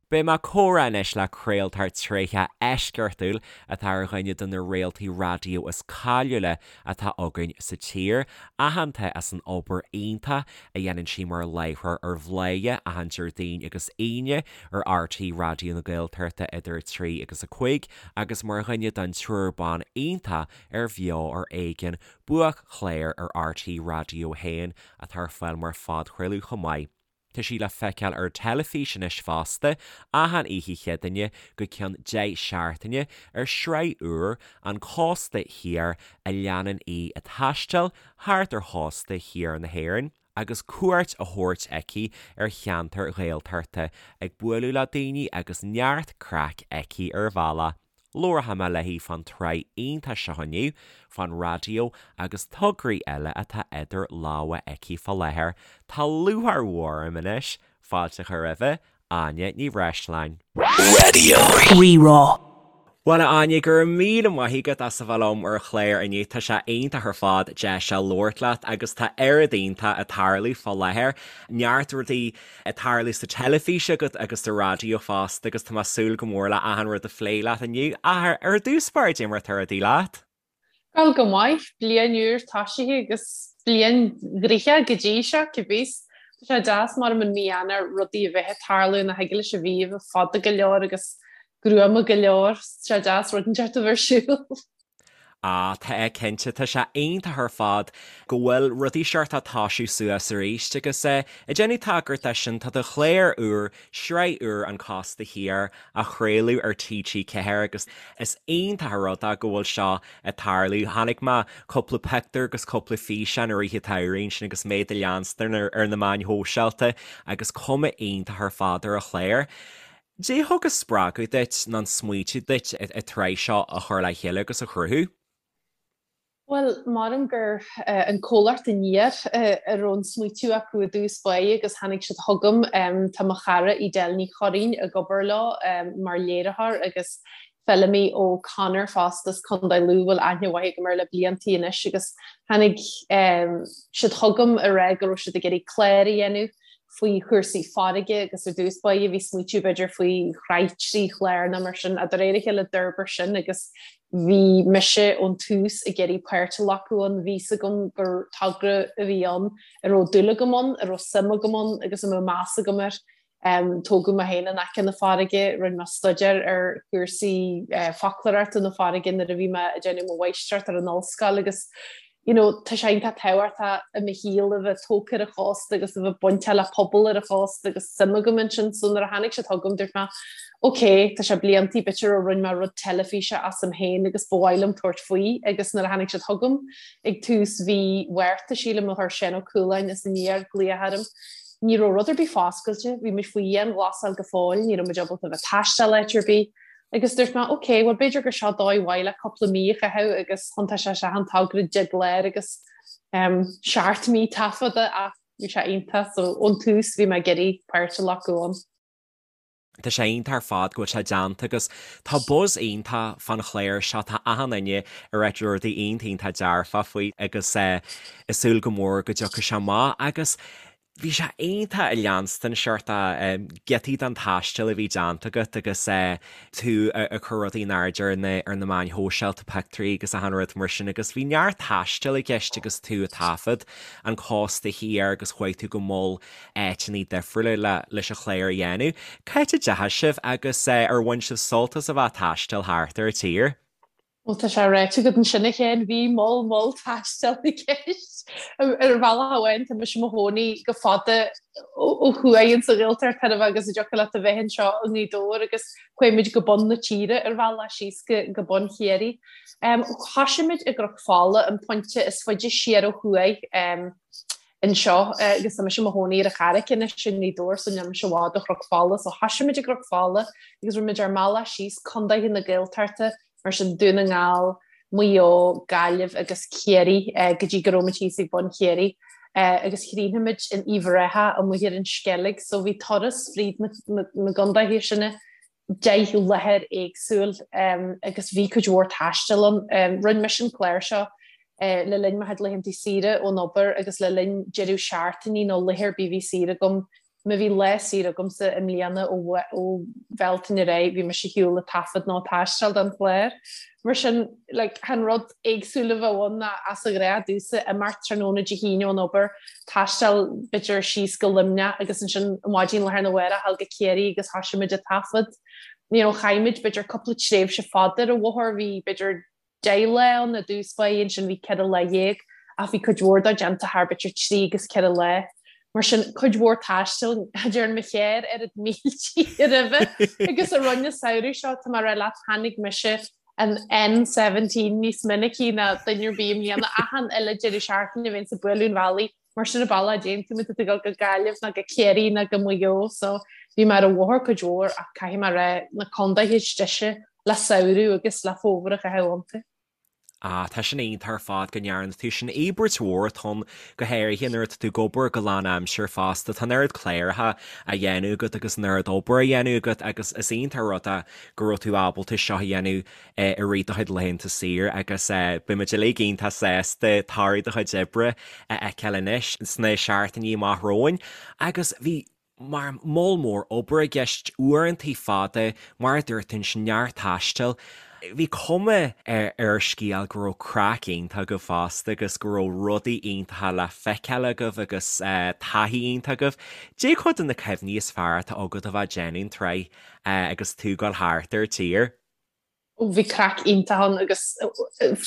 Beidh mé ag comhrá anois le craoltóir tréitheach eisceachtúil atá ar dhuine de na réaltaí raidió is cáiliúla atá againn sa tír, aitheanta as an obair iontach a dhéanann sí mar láithreoir ar Bhladhaire achan Déardaoin agus Aoine ar RTÉ Raidió na Gaeltachta idir 3 agus 5 agus mar dhuine den triúr ban iontach ar Bheo ar Éigean, buaic-chlár ar RTÉ Raidió 1 atá ar fáil mar phodchraoladh chomh maith. Tá sí le feiceáil ar teilifís anois fosta, achan oíche Chéadaoine go ceann 10 seachtaine, ar shraith úr, An Cósta Thiar, a leanann í ag taisteal thart ar chósta thiar na hÉireann, agus cuairt á thabhairt aici ar cheantair Ghaeltachta, ag bualadh le daoine agus neart craic aici ar an bhealach. Labharfaidh mé léi fán tsraith iontach seo inniu, fán raidió agus tograí eile atá idir lámha aici fá láthair. Tá lúcháir mhór orm anois fáilte a chur roimhe, Áine Ní Bhreisleáin. Raidió Rí-Rá. Bhuel, a Áine, go raibh míle maith agat as a bheith liom ar an chlár inniu. Tá sé iontach ar fad deis a labhairt leat agus tá oiread iontach ag tarlú fá láthair. Neart rudaí ag tarlú sa teilifís agat agus sa raidió fosta agus tá mé ag súil go mór le achan rud a phlé leat inniu. Ach ar dtús báire, cad é mar atá rudaí leat? Bhuel, go maith. Bliain úr toisithe agus bliain ghnoitheach go dtí seo, cibé. Tá sé deas mar i mí Eanáir rudaí a bheith ag tarlú nach thig leis an mhí a bheith fada go leor agus gruama go leor. Tá sé deas rud inteacht a bheith ar siúl. Ah, tá cinnte, tá sé iontach ar fad go bhfuil rudaí seort ag toisiú suas arís agus eh, ag déanamh tagairt dó sin, tá do chlár úr, sraith úr An Cósta Thiar á chraoladh ar TG4 agus is iontach an rud é go bhfuil seo ag tarlú. Chonaic mé cúpla pictiúr agus cúpla físeán i rith an tsamhraidh ansin agus mé do leanstan ar na meáin shóisialta agus cuma iontach ar fad ar an chlár. Cad é a thug an spreagadh duit nó an smaoitiú duit an tsraith seo a chur le chéile agus a chruthú? Bhuel, maram gur an comhlacht Aniar a raibh an smaoitiú acu i dtús báire agus tháinig siad chugam. Tá mo chara Edel Ní Churraoin ag obair leo mar léiritheoir agus Feilimí O'Connor fosta as Contae Lú a bhfuil aithne mhaith agam air le bliantaí anois agus tháinig siad chugam a rá go raibh siad ag iarraidh clár a dhéanamh faoi chúrsaí farraige agus ar dtús báire bhí smaoitiú b'fhéidir faoi shraith 3 chlár nó mar sin ach de réir a chéile d'fhorbair sin agus bhí mise ón tús ag iarraidh páirt a ghlacadh ann, bhí 'fhios agam gur togra a bhí ann a raibh dúil agam ann, a raibh suim agam ann agus a mbeadh meas agam air. Tógadh mé féin in aice na farraige, rinne mé staidéar ar chúrsaí foclóireachta na farraige nuair a bhí mé ag déanamh mo mháistreacht ar an ollscoil agus you know, tá sé iontach tábhachtach i mo shaol a bheith tógtha ar an chósta agus a bheith bainteach le pobal ar an chósta agus suim agam ansin so nuair a tháinig siad chugam dúirt mé ok, tá sé bliantaí b'fhéidir ó rinne mé rud teilifíse asam féin agus ba mhaith liom tabhairt faoi agus nuair a tháinig siad chugam ag tús mhí Mhárta sílim a chuir Seán Ó Cualáin as Aniar glaoch orm Ní raibh rud ar bith foscailte, bhí muid faoi dhianghlasáil go fóill, ní raibh muid ábalta a bheith ag taisteal áit ar bith. Agus dúirt mé, ok, bhuel b'fhéidir gur seo dóigh mhaith le cúpla mí a chaitheamh agus thiontaigh sé isteach in togra 10 gclár agus 7 mí taifeadta ach bhí sé iontach so ón tús bhí mé ag iarraidh páirt a ghlacadh ann. Tá sé iontach ar fad go bhfuil sé déanta agus tá buzz iontach fán chlár seo, tá achan duine ag ráit rudaí iontach iontach dearfach faoi agus ag súil go mór go dtiocfaidh sé amach agus bhí sé iontach a leanstan seort giotaí den taisteal a bhí déanta agat agus tú ag cur rudaí in airde ar na ar na meáin shóisialta, pictiúirí agus achan rud mar sin agus bhí neart taistil i gceist agus tú ag taifead an cósta thiar agus chuaigh tú go mol áiteanna difriúla leis an chlár a dhéanamh. Cá háit a dteachaigh sibh agus ar bhain sibh sult as a bheith ag taisteal thart ar an tír? Bhuel, tá sé ráite agat ansin a Chéin, bhí moll moll taistil i gceist. Ar bhealach amháin, tá mise i mo chónaí go fada ó thuaidh insa Ghaeltacht chóir a bheith agus an dtiocfadh leat a bheith anseo i nGaoth Dobhair agus chuaigh muid go bun na tíre ar bhealach síos go bun Chiarraí. Thoisigh muid i gCnoc Fola, an pointe is faide siar ó thuaidh. anseo agus tá mise i mo chónaí ar an Charraic anois i nGaoth Dobhair so níl mise i bhfad ó Chnoc Fola so thoisigh muid i gCnoc Fola agus rinne muid ár mbealach síos condaetha na Gaeltachta mar sin Dún na nGall, Maigh Eo, Gaillimh agus Ciarraí go dtí go raibh muid thíos ag bun Chiarraí agus chríochnaigh muid in Uíbh Ráthach amuigh ar an Sceilg so bhí turas fríd na gcondaetha sin 10 láthair éagsúil agus bhí cuid mhór taistil ann. Rinne mise an clár seo le linn mo chuid laethanta saoire ón obair agus le linn deireadh seachtainí nó laetha ar bith a bhí saor agam. Má bhí lá saor agamsa i mbliana ó Bhealtaine ar aghaidh, bhí mise ar shiúl ag taifead nó ag taisteal don chlár. Mar sin, like, chan rud éagsúil a bheadh ann ná as an ghnáth domhsa imeacht tráthnóna Dé hAoine ón obair, taisteal b'fhéidir síos go Luimneach agus ansin maidin lá arna mhárach a ghabháil go Ciarraí agus thoisigh muid ag taifead. You know, chaith muid b'fhéidir cúpla tréimhse fada ar an bhóthar, bhí b'fhéidir 10 lá ann i dtús báire, ansin bhí 14 lá ach bhí cuid mhór dó déanta thar b'fhéidir trí agus ceithre lá. Mar sin, cuid mhór taistil, cha dtearn mo charr oiread míltí roimhe agus a rinne an samhradh seo, tá mé ag rá leat, tháinig mise an N17 níos minicí ná duine ar bith i mbliana, achan uile deireadh seachtaine bhínnse ag bualadh an bhealaigh Mar sin an bealach a dtéann tú má tá tú ag dul go Gaillimh nó go Ciarraí nó go Maigh Eo so bhí mé ar an bhóthar cuid mhór ach caithfidh mé a rá na condaetha is deise le samhradh agus le fómhar a chaitheamh iontu. Ah, tá sin iontach ar fad go ndearna tú sin. Íobairt mhór atá ann, go háirithe nuair atá tú ag obair go lánaimseartha fosta. Tá an oiread cláracha á dhéanamh agat agus an oiread obair á dhéanamh agat agus is iontach an rud é go raibh tú ábalta seo a dhéanamh i rith do chuid laethanta saoire agus beidh muid uilig iontach sásta toradh do chuid oibre a fheiceáil anois sna seachtainí amach romhainn. Agus bhí mar moll mór obair i gceist, uaireantaí fada, mar a dúirt tú ansin, neart taistil. Bhí cuma ar an scéal go raibh craic iontach agaibh fosta agus go raibh rudaí iontacha le feiceáil agaibh agus taithí iontach agaibh. Cad é cuid de na cuimhní is fearr atá agat a bheith ag déanamh an tsraith agus tú ag dul thart ar an tír? Bhí craic iontach ann agus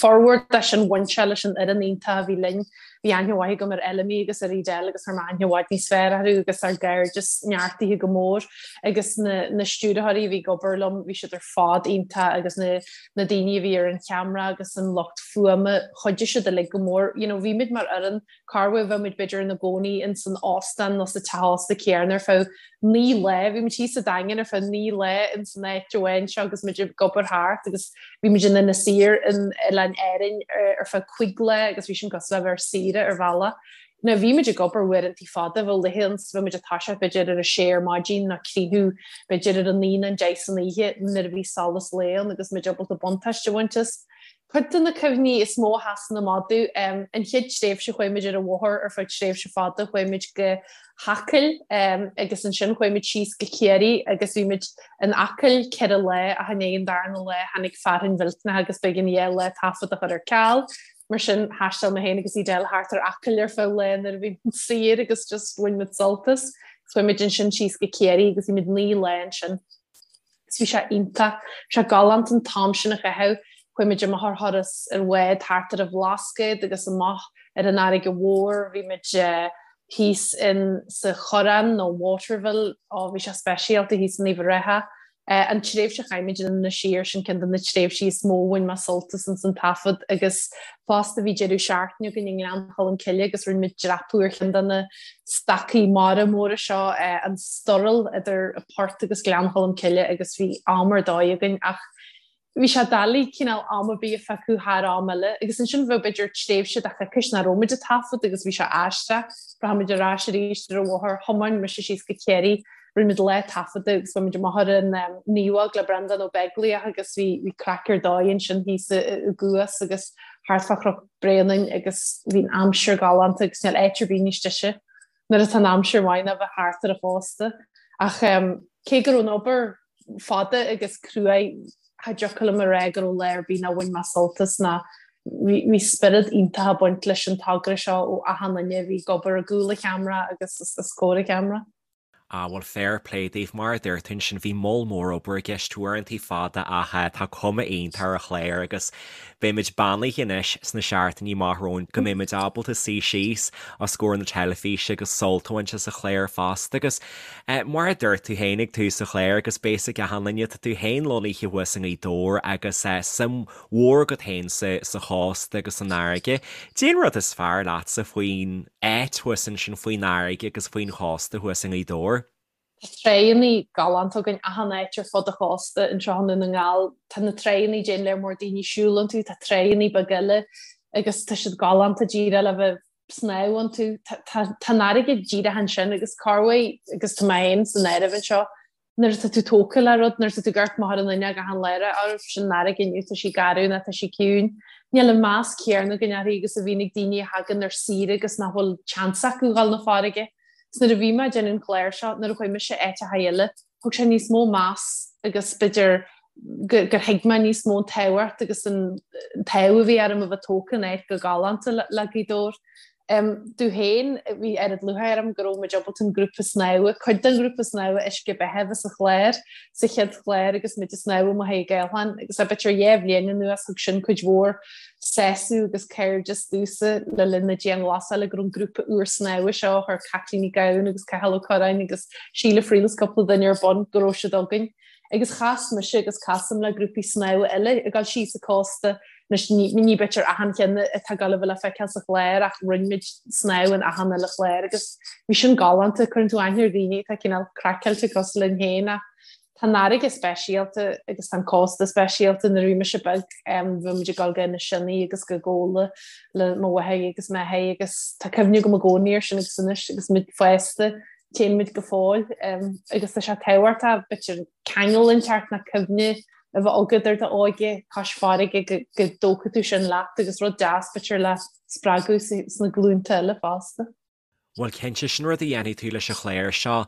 formhór de sin bhain sé leis an fhoireann iontach a bhí linn. Bhí aithne mhaith agam ar Fheilimí agus ar Edel agus chuir mé aithne i bhfad níos fearr orthu agus ár gcairdeas neartaithe go mór agus na na stiúrthóirí a bhí ag obair liom, bhí siad ar fad iontach agus na na daoine a bhí ar an cheamara agus an lucht fuaime, chuidigh siad uilig go mór. You know, bhí muid mar fhoireann corruair bheadh muid b'fhéidir ina gcónaí ins an óstán nó sa teach ósta céanna ar feadh 9 lá. Bhí muid thíos sa Daingean ar feadh 9 lá ins an áit amháin seo agus muid ag obair thart agus bhí muid in Inis Oírr in Oileáin Árainn ar feadh 5 lá agus bhí sin cosúil le bheith ar saoire ar bhealach. Now bhí muid ag obair uaireantaí fada, bheadh laethe ann bheadh muid ag toiseacht b'fhéidir ar a sé ar maidin nó críochnú b'fhéidir ar a naoi nó an deich san oíche nuair a bhí solas lae ann agus muid ábalta buntáiste a bhaint as. Cuid de na cuimhní is mó a sheasann amach domh, an chéad tréimhse chuaigh muid ar an bhóthar ar feadh tréimhse fada, chuaigh muid go hAcaill agus ansin chuaigh muid síos go Ciarraí agus bhí muid in Acaill ceithre lá ach i ndiaidh an darna lá tháinig fearthainn mhillteanach agus b'éigean dhá lá taifead a chur ar ceal. Mar sin thaisteal mé féin agus Edel thart ar Acaill ar feadh lae nuair a bhí muid saor agus just bhain muid sult as. Chuaigh muid ansin síos go Ciarraí agus bhí muid 9 lá ansin. Agus bhí sé iontach. Bhí sé galánta an t-am sin a chaitheamh. Chuaigh muid amach ar thuras ar bhád thart ar an Bhlascaod agus amach ar an fharraige mhór. Bhí muid thíos in sa Choireán nó Waterville. Ó, bhí sé speisialta thíos in Uíbh Ráthach. An tréimhse a chaith muid in Inis Oírr, sin ceann de na tréimhsí is mó a bhain mé sult as ins an taifead agus fosta bhí deireadh seachtaine againn i nGleann Cholm Cille agus rinne muid dreapadh ar cheann de na stacaí mara móra seo, an Sturrall idir an Port agus Gleann Cholm Cille agus bhí am ar dóigh againn ach bhí sé doiligh cineál am ar bith a phiocadh thar am eile agus ansin bheadh b'fhéidir tréimhse de choicís nach raibh muid ag taifead agus bhí sé aisteach. Rachaidh muid ar ais arís ar an bhóthar, thiomáin mise síos go Ciarraí, rinne muid lá taifeadta agus bhí muid amach ar an Naomhóg le Breandán Ó Beaglaoich agus bhí bhí craic ar dóigh ansin thíos i gCuas agus thart fá Chnoc Bréanainn agus bhí an aimsir galánta agus níl áit ar bith níos deise nuair atá an aimsir maith ná bheith thart ar an chósta. Ach cé go raibh an obair fada agus cruaidh, cha dtiocfadh liom a rá go raibh lá ar bith nár bhain mé sult as ná bhí spiorad iontach ag baint leis an togra seo ó achan duine a bhí ag obair i gcúl an cheamara agus os comhair an cheamara. Ah bhuel fair play daoibh, mar a dúirt tú ansin bhí moll mór obair i gceist, uaireantaí fada ach tá cuma iontach ar an chlár agus beimid beannaithe anois sna seachtainí amach romhainn go mbeimid ábalta suí síos os comhair na teilifíse agus sult a bhaint as an chlár fosta agus mar a dúirt tú féin ag tús an chláir agus beidh a fhios ag achan duine tá tú féin lonnaithe thuas i nGaoth Dobhair agus suim mhór agat féin sa chósta agus san fharraige. Cad é an rud is fearr leatsa faoin áit thuas ansin faoin fharraige agus faoin chósta thuas i nGaoth Dobhair. Tá tráigheannaí galánta againn achan áit ar fud an chósta anseo i nDún na nGall. Tá na tráigheannaí a dtéann lear mór daoine siúl iontu, tá tráigheannaí beaga eile agus tá siad galánta díreach le bheith ag snámh iontu. Tá an fharraige díreach ansin agus corruair agus tá mé féin san áireamh anseo nuair atá tú tógtha le rud, nuair atá tú ag amharc amach ar an fhuinneog achan lá, á sin an fharraige inniu, tá sí garbh nó tá sí ciúin. Níl an meas céanna againn uirthi agus a bhíonn ag daoine a thagann ar saoire agus nach bhfuil seans acu dhul 'na farraige. Is nuair a bhí mé ag déanamh an chláir seo, nuair a chuaigh mise áiteacha eile, thug sé níos mó meas agus b'fhéidir gur thuig mé níos mó an tábhacht agus an t-ádh a bhí orm a bheith tógtha in áit chomh galánta le Gaoth Dobhair. Domh féin, bhí oiread lúcháir orm go raibh muid ábalta an grúpa snámha, cuid den ghrúpa snámha Uisce Beatha a bheith sa chlár, sa chéad chlár agus muid ag snámh amuigh ag Aolchán agus b'fhéidir 2 bhliain anuas thug sin cuid mhór sásamh agus cairdeas domhsa le linn na dianghlasála go raibh an grúpa úr snámha seo a chuir Caitlín Ní Ghabhann agus Cathal Ó Curráin agus Síle Friel is cúpla duine ar bun go raibh siad againn. Agus chas mise agus casaim le grúpaí snámha eile ag dul síos an cósta, anois ní ní b'fhéidir achan cheann atá ag dul a bheith le feiceáil sa chlár ach rinne muid snámh in achan uile chlár agus bhí sin galánta, cuireann tú aithne ar dhaoine atá cineál craiceáilte cosúil linn féin ach Tá an fharraige speisialta agus tá an cósta speisialta. Nuair a bhí mise beag bhí muid ag dul go Inis Sionna agus go Gabhla le mo mháthair agus m'athair agus tá cuimhne agam i gcónaí air sin agus anois agus muid fásta téann muid go fóill agus tá sé tábhachtach b'fhéidir ceangal inteacht nó cuimhne a bheith agat ar d'óige cois farraige go dtógfaidh tú sin leat agus rud deas b'fhéidir le spreagadh sna glúnta eile fosta. Bhuel, cinnte, sin rud a dhéanfaidh tú leis an chlár seo,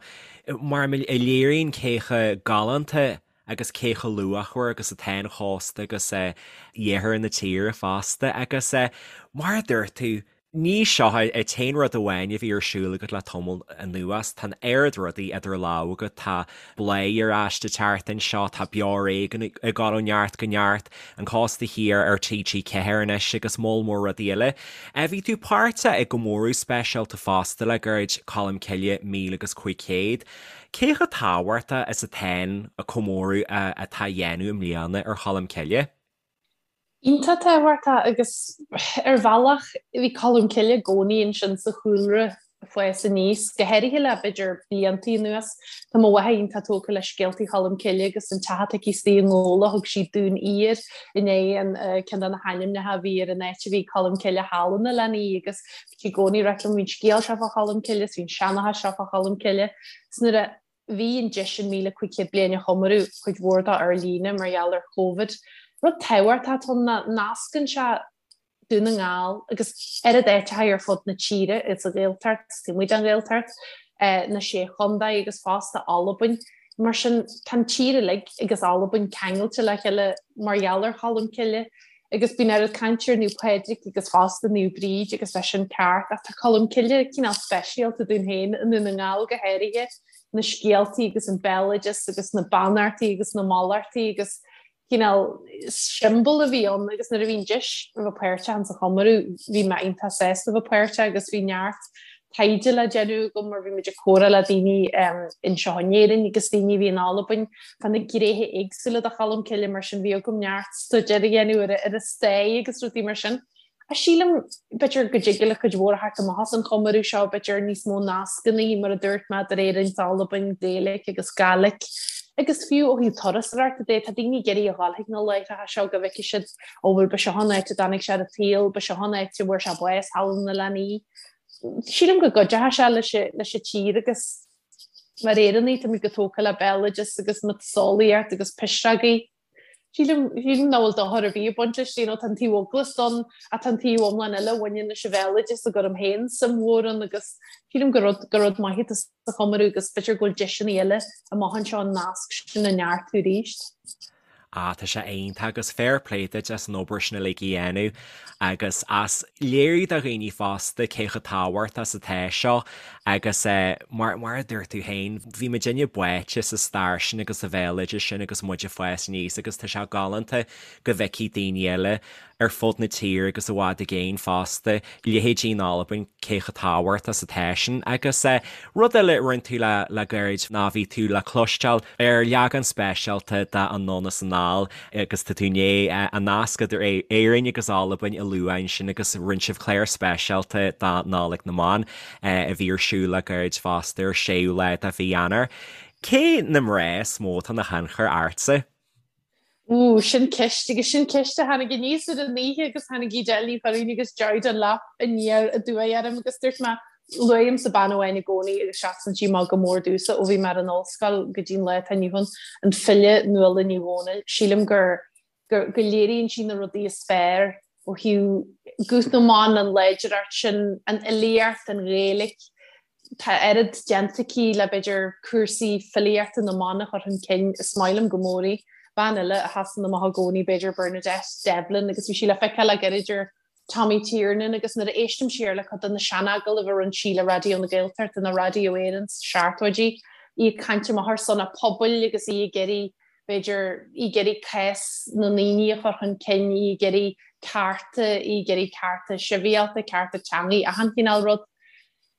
mar a léiríonn cé chomh galánta agus cé chomh luachmhar agus atá an chósta agus iarthar na tíre fosta. Agus mar a dúirt tú, ní seo an t-aon rud amháin a bhí ar siúl agat le tamall anuas, tá an oiread rudaí idir lámha agat, tá Bladhaire ar ais an tseachtain seo, tá Beo Ar Éigean ag dul ó neart go neart, An Cósta Thiar ar TG4 anois agus moll mór rudaí eile. Bhí tú páirteach i gcomóradh speisialta fosta le gairid, Colm Cille 1500. Cé chomh tábhachtach is atá an comóradh atá á dhéanamh i mbliana ar Cholm Cille? Iontach tábhachtach agus ar bhealach bhí Colm Cille i gcónaí ansin sa chúlra ag fás aníos, go háirithe le b'fhéidir blianta anuas. Tá mo mháthair iontach tógtha le scéaltaí Cholm Cille agus an teach atá aici istigh i nGabhla, thug sí Dún Ír i ndiaidh an ceann de na hainmneacha a bhí ar an áit a bhí Colm Cille thall in Oileán Í agus bhí sí i gcónaí ag ráit liom bhí an scéal seo fá Cholm Cille is bhí an seanchas seo fá Cholm Cille. Is nuair a Bhí an deis an 1,500 bliain a chomóradh, cuid mhór dó ar líne mar gheall ar Covid. Rud tábhachtach atá ann ná nascann sé Dún na nGall agus oiread áiteacha ar fud na tíre, sa Ghaeltacht, taobh amuigh den Ghaeltacht, na Sé Chontae agus fosta Albain. Mar sin, tá an tír uilig agus Albain ceangailte le chéile mar gheall ar Cholm Cille. Agus bíonn oiread cainte ar Naomh Pádraig agus fosta Naomh Bríd agus tá sin ceart ach tá Colm Cille cineál speisialta dúinn féin i nDún na nGall go háirithe, na scéaltaí agus an béaloideas agus na beannachtaí agus na mallachtaí agus cineál siombail a bhí ann agus nuair a bhí an deis a bheith páirteach insa chomóradh bhí mé iontach sásta a bheith páirteach agus bhí neart taighde le déanamh agam mar bhí muid ag comhrá le daoine anseo in Éirinn agus daoine a bhí in Albain fá na gnéithe éagsúla de Cholm Cille mar sin bhí agam neart staidéar a dhéanamh ar ar a stair agus rudaí mar sin. Ach sílim, b'fhéidir go dtig le cuid mhór a theacht amach as an chomóradh seo, b'fhéidir níos mó nascanna mar a dúirt mé idir Éirinn is Albain, Gaeilge agus Gàidhlig. Agus fiú ó thaobh turasóireachta de, tá daoine ag iarraidh a dhul chuig na láithreacha seo go bhfeicfidh siad, ó bhuel ba seo an áit a dtáinig sé ar an tsaol, ba seo an áit a bhfuair sé bás thall in Oileán Í. Sílim go gcuideoidh sé leis leis an tír agus mar Éireannaigh táimid chomh tógtha le béaloideas agus miotaseolaíocht agus pisreogaí. Sílim sílim nach bhfuil dochar ar bith ag baint leis, you know, tá an taobh eaglasta ann ach tá an taobh iomlán eile a bhaineann leis an bhéaloideas a gcuirim féin suim mhór ann agus sílim gur rud gur rud maith atá sa chomóradh agus b'fhéidir go bhfuil deiseanna eile amach anseo an nasc sin a neartú arís. Ah, tá sé iontach agus fair play duit as an obair sin uilig a dhéanamh agus as léiriú do dhaoine fosta cé chomh tábhachtach is atá seo agus eh, mar, mar a dúirt tú féin, bhí muidinne báite sa stair sin agus sa bhéaloideas sin agus muid ag fás aníos agus tá sé galánta go bhfeicfidh daoine eile ar fud na tíre agus i bhfad i gcéin fosta, leithéidí in Albain, cé chomh tábhachtach is atá sin. Agus rud eile a rinne tú le le gairid ná bhí tú le cloisteáil ar leagan speisialta de Anonn is Anall agus tá tú i ndiaidh an nasc idir Éirinn agus Albain a lua ansin agus rinne sibh clár speisialta do Nollaig na mBan a bhí ar siúl le gairid fosta ar 6ú lá de mhí Eanáir. Cé na mná is mó atá ina thionchar ortsa? Ooh, sin ceist, agus sin ceist a tháinig aníos ar an oíche agus tháinig Edel Ní Churraoin agus Joy Dunlop aniar aduaidh orm agus dúirt mé, luaimse bean amháin i gcónaí agus seasann sí amach go mór domhsa ó bhí mé ar an ollscoil go dtí an lá atá inniu ann, an file Nuala Ní Dhomhnaill. Sílim gur, gur, go léiríonn sí na rudaí is fearr ó thaobh guth na mban, an láidreacht sin, an fhilíocht, an Ghaeilge. Tá oiread déanta aici le b'fhéidir cúrsaí filíochta na mban a chur chun cinn, is maith liom go mór í. Bean eile a sheasann amach i gcónaí b'fhéidir Bernadette Devlin agus bhí sí le feiceáil le gairid ar Tommy Tiernan agus nuair a éistim siar le cuid de na seanagallaimh a rinne sí le Raidió na Gaeltachta nó Raidió Éireann sna seachtóidí, í ag caint amach ar son a pobail agus í ag iarraidh, b'fhéidir, í ag iarraidh cás na ndaoine a chur chun cinn, í ag iarraidh cearta, í ag iarraidh cearta sibhialta, cearta teangaí, achan chineál rud.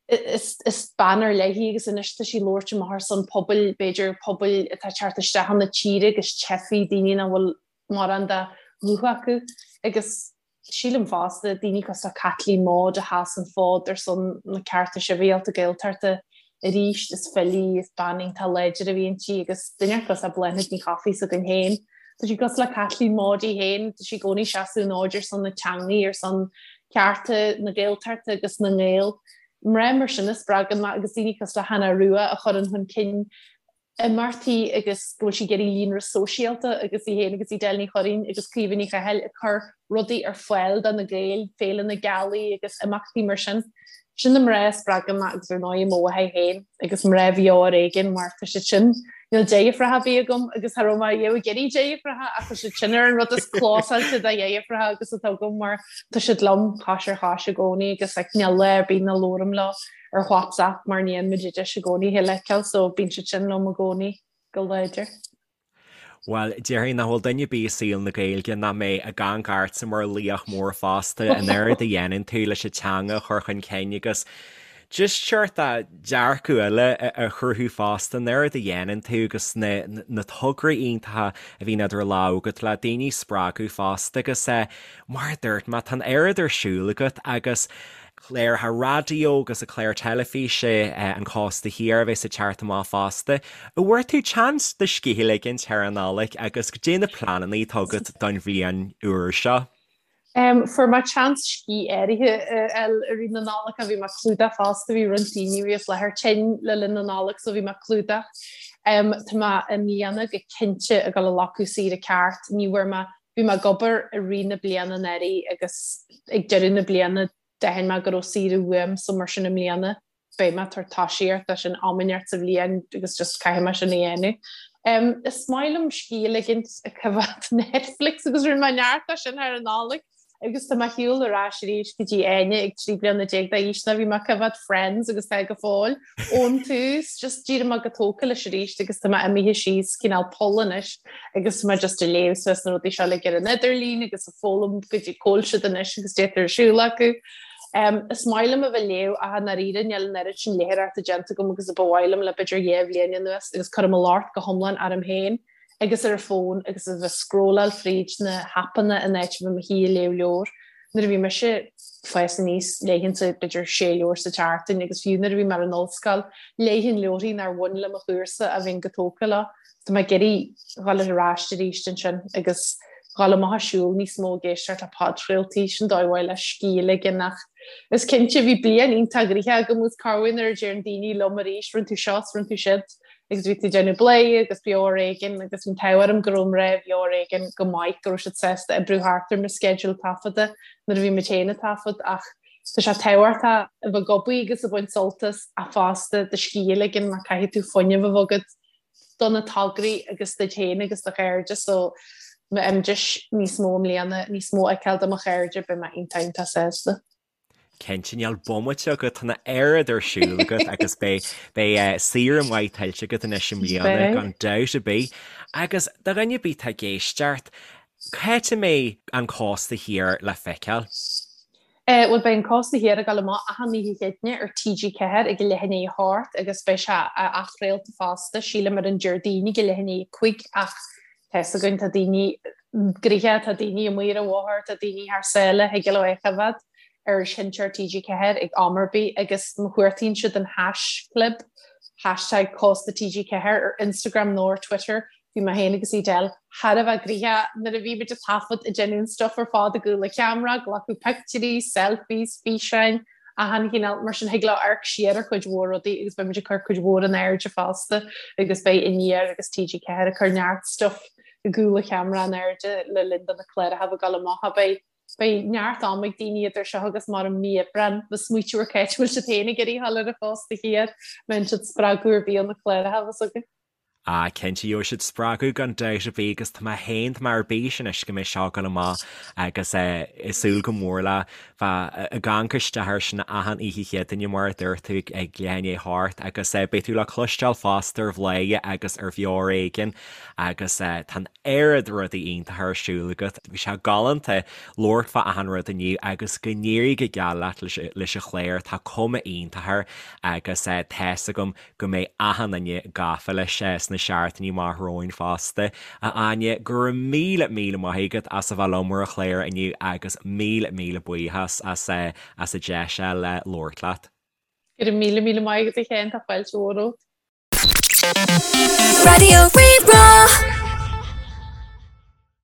Is is bean ar leith í agus anois tá sí ag labhairt amach ar son pobail, b'fhéidir pobail atá ag teacht isteach chun na tíre agus teifigh, daoine nach bhfuil mórán de ghuth acu agus sílim fosta, daoine cosúil le Caitlín Maude a sheas an fód ar son na cearta sibhialta Gaeltachta arís, is file í, is bean iontach láidir a bhí inti agus duine cosúil le Bláthnaid Ní Chofaigh s'againn féin. Tá sí cosúil le Caitlín Maude í féin, tá sí i gcónaí ag seasamh an fhóid ar son na teangaí, ar son cearta na Gaeltachta agus na nGael. Mná mar sin a spreagann mé agus daoine cosúil le Hannah Rua a chuireann chun cinn imeachtaí agus go bhfuil sí ag iarraidh líonra sóisialta agus í féin agus Edel Ní Churraoin agus Caoimhe Ní Chathail ag cur rudaí ar fáil do na Gaeil, Féile na Gealaí agus imeachtaí mar sin. Sin na mná a spreagann mé agus ar ndóigh mo mháthair féin agus mná Bheo Ar Éigean mar tá siad sin, níl deirfiúracha ar bith agam agus cha raibh mé riamh ag iarraidh deirfiúracha ach tá siad sin ar an rud is clósáilte de dheirfiúracha agus atá agam mar tá siad liom cois ar chois i gcónaí agus like níl lá ar bith nach labhraím leo. ar WhatsApp mar ní fhaigheann muid deis i gcónaí a chéile a fheiceáil so bíonn siad sin liom i gcónaí go láidir. Bhuel, déarfainn nach bhfuil duine ar bith i saol na Gaeilge nach mbeidh ag amharc ortsa mar laoch mór fosta, an oiread a dhéanann tú leis an teanga a chur chun cinn agus just seort dearcadh eile a chruthú fosta, an oiread a dhéanann tú agus na na tograí iontacha a bhíonn idir lámha agat le daoine a spreagadh fosta agus mar a dúirt mé, tá an oiread ar siúl agat agus cláracha raidió agus an clár teilifíse An Cósta Thiar a bheas ag teacht amach fosta. An bhfuair tú chance do scíth a ligint thar an Nollaig agus goidé na pleananna atá agat don bhliain úr seo? Fuair mé chance scíth áirithe a fháil i rith na Nollag bhí mé ag clúdach fosta, bhí roinnt daoine a bhí as láthair tinn le linn na Nollag so bhí mé ag clúdach. Tá mé i mbliana go cinnte ag dul a ghlacadh saoire ceart, ní bhfuair mé Bhí mé ag obair i rith na bliana anuraidh agus ag deireadh na bliana d'aithin mé go raibh saoire uaim so mar sin i mbliana beidh mé ag tabhairt tosaíocht dó sin am inteacht sa bhliain agus just caithfidh mé sin a dhéanamh. Is maith liom scíth a ligint ag coimhéad Netflix agus rinne mé neart de sin thar an Nollaig agus tá mé ar shiúl ar ais arís go dtí Áine ag 13 bliana d'aois nuair a bhí mé ag coimhéad Friends agus tá go fóill ón tús, just d'éirigh mé go tógtha leis arís agus tá mé imithe síos cineál poll anois agus tá mé just ag léamh suas na rudaí seo uilig ar an idirlíon agus ag foghlaim goidé cá bhfuil siad anois agus goidé atá ar siúl acu. Um, is maith liom a bheith ag léamh ach i ndáiríre níl an oiread sin léitheoireachta déanta agam agus a ba mhaith liom le b'fhéidir 2 bhliain anuas agus cuirim an locht go hiomlán orm féin agus ar an bhfón agus a bheith ag scrolláil fríd na haipeanna in áit a bheith i mo shuí ag léamh leabhar. Nuair a bhí mise ag fás aníos, léifinnse b'fhéidir sé leabhar sa tseachtain agus fiú nuair a bhí mé ar an ollscoil, léifinn leabharthaí nár bhain le mo chúrsa ach bhínn go tógtha leo. Tá mé ag iarraidh dhul ar ais arís ansin agus dhul amach ag siúl níos mó ag éisteacht le podchraoltaí, sin dóigh mhaith le scíth a ligean ach is cinnte bhí bliain iontach gnoitheach agam agus corruair nuair a deireann daoine liom arís rinne tú seo 's rinne tú siúd agus bhí tú ag déanamh Bladhaire agus Beo Ar Éigean agus bhí an t-ádh orm go raibh mná Bheo Ar Éigean go maith go raibh siad sásta oibriú thart ar mo sceideal taifeadta nuair a bhí muid féin ag taifead ach tá sé tábhachtach a bheith ag obair agus ag baint sult as ach fosta do scíth a ligean mar caithfidh tú fuinneamh a bheith agat do na tograí agus duit féin agus do chairde so má fhaighim deis níos mó i mbliana níos mó a fheiceáil de mo chairde beidh mé iontach iontach sásta. Cinnte, níl bomaite agat, tá an oiread ar siúl agat agus beidh beidh saoire mhaith tuillte agat anois i mbliana gan dabht ar bith. Agus do dhuine ar bith atá ag éisteacht, cá háit a mbeidh An Cósta Thiar le feiceáil? Bhuel beidh An Cósta Thiar ag dul amach achan oíche Chéadaoine ar TG4 ag a leath i ndiaidh a hocht agus beidh sé athchraolta fosta, sílim ar an Déardaoin ag a leath i ndiaidh a cúig ach tá fhios againn tá daoine gnoitheach, tá daoine amuigh ar an bhóthar, tá daoine thar sáile, thig leo é a choimhéad ar sheinnteoir TG4 ag am ar bith agus má chuartaíonn siad an haischlib, hashtag Cósta TG4 ar Instagram nó ar Twitter, bhí mé féin agus Edel thar a bheith gnoitheach nuair a bhí muid ag taifead ag déanamh an stuff ar fad i gcúl an cheamara, glacadh pictiúirí, selfies, físeáin, achan chineál, mar sin thig leo amharc siar ar chuid mhór rudaí agus beidh muid ag cur cuid mhór in airde fosta agus beidh Aniar agus TG4 ag cur neart stuff i gcúl an cheamara in airde le linn do na cláracha a bheith ag dul amach. Beidh. Beidh neart ama ag daoine idir seo agus mar an mí Aibreán le smaoitiú ar c'áit a bhfuil siad féin ag iarraidh a dhul ar an chósta thiar, mbeidh siad spreagadh ar bith ó na cláracha a bheas againn. Ah, cinnte, gheobhaidh siad spreagadh gan dabht ar bith agus tá mé féin, tá mé ar bís anois go mbeidh seo ag dul amach agus eh ag súil go mór le bheith ag amharc isteach air sin achan oíche Chéadaoine mar a dúirt tú ag leath i ndiaidh a hocht agus eh beidh tú le cloisteáil fosta ar Bhladhaire agus ar Bheo ar Éigean agus eh tá an oiread rudaí iontacha ar siúl agat. Bhí sé galánta labhairt fá achan rud inniu agus go n-éirí go geal leat leis an chlár, tá cuma iontach air agus tá's agam go mbeidh achan duine gafa leis sna seachtainí amach romhainn fosta. A Áine, go raibh míle míle maith agat as a bheith liom ar an chlár inniu agus míle míle buíochas as as an deis le labhairt leat. Go raibh míle míle maith agat a Sheáin, tá fáilte mhór romhat. Raidió Rí-Rá.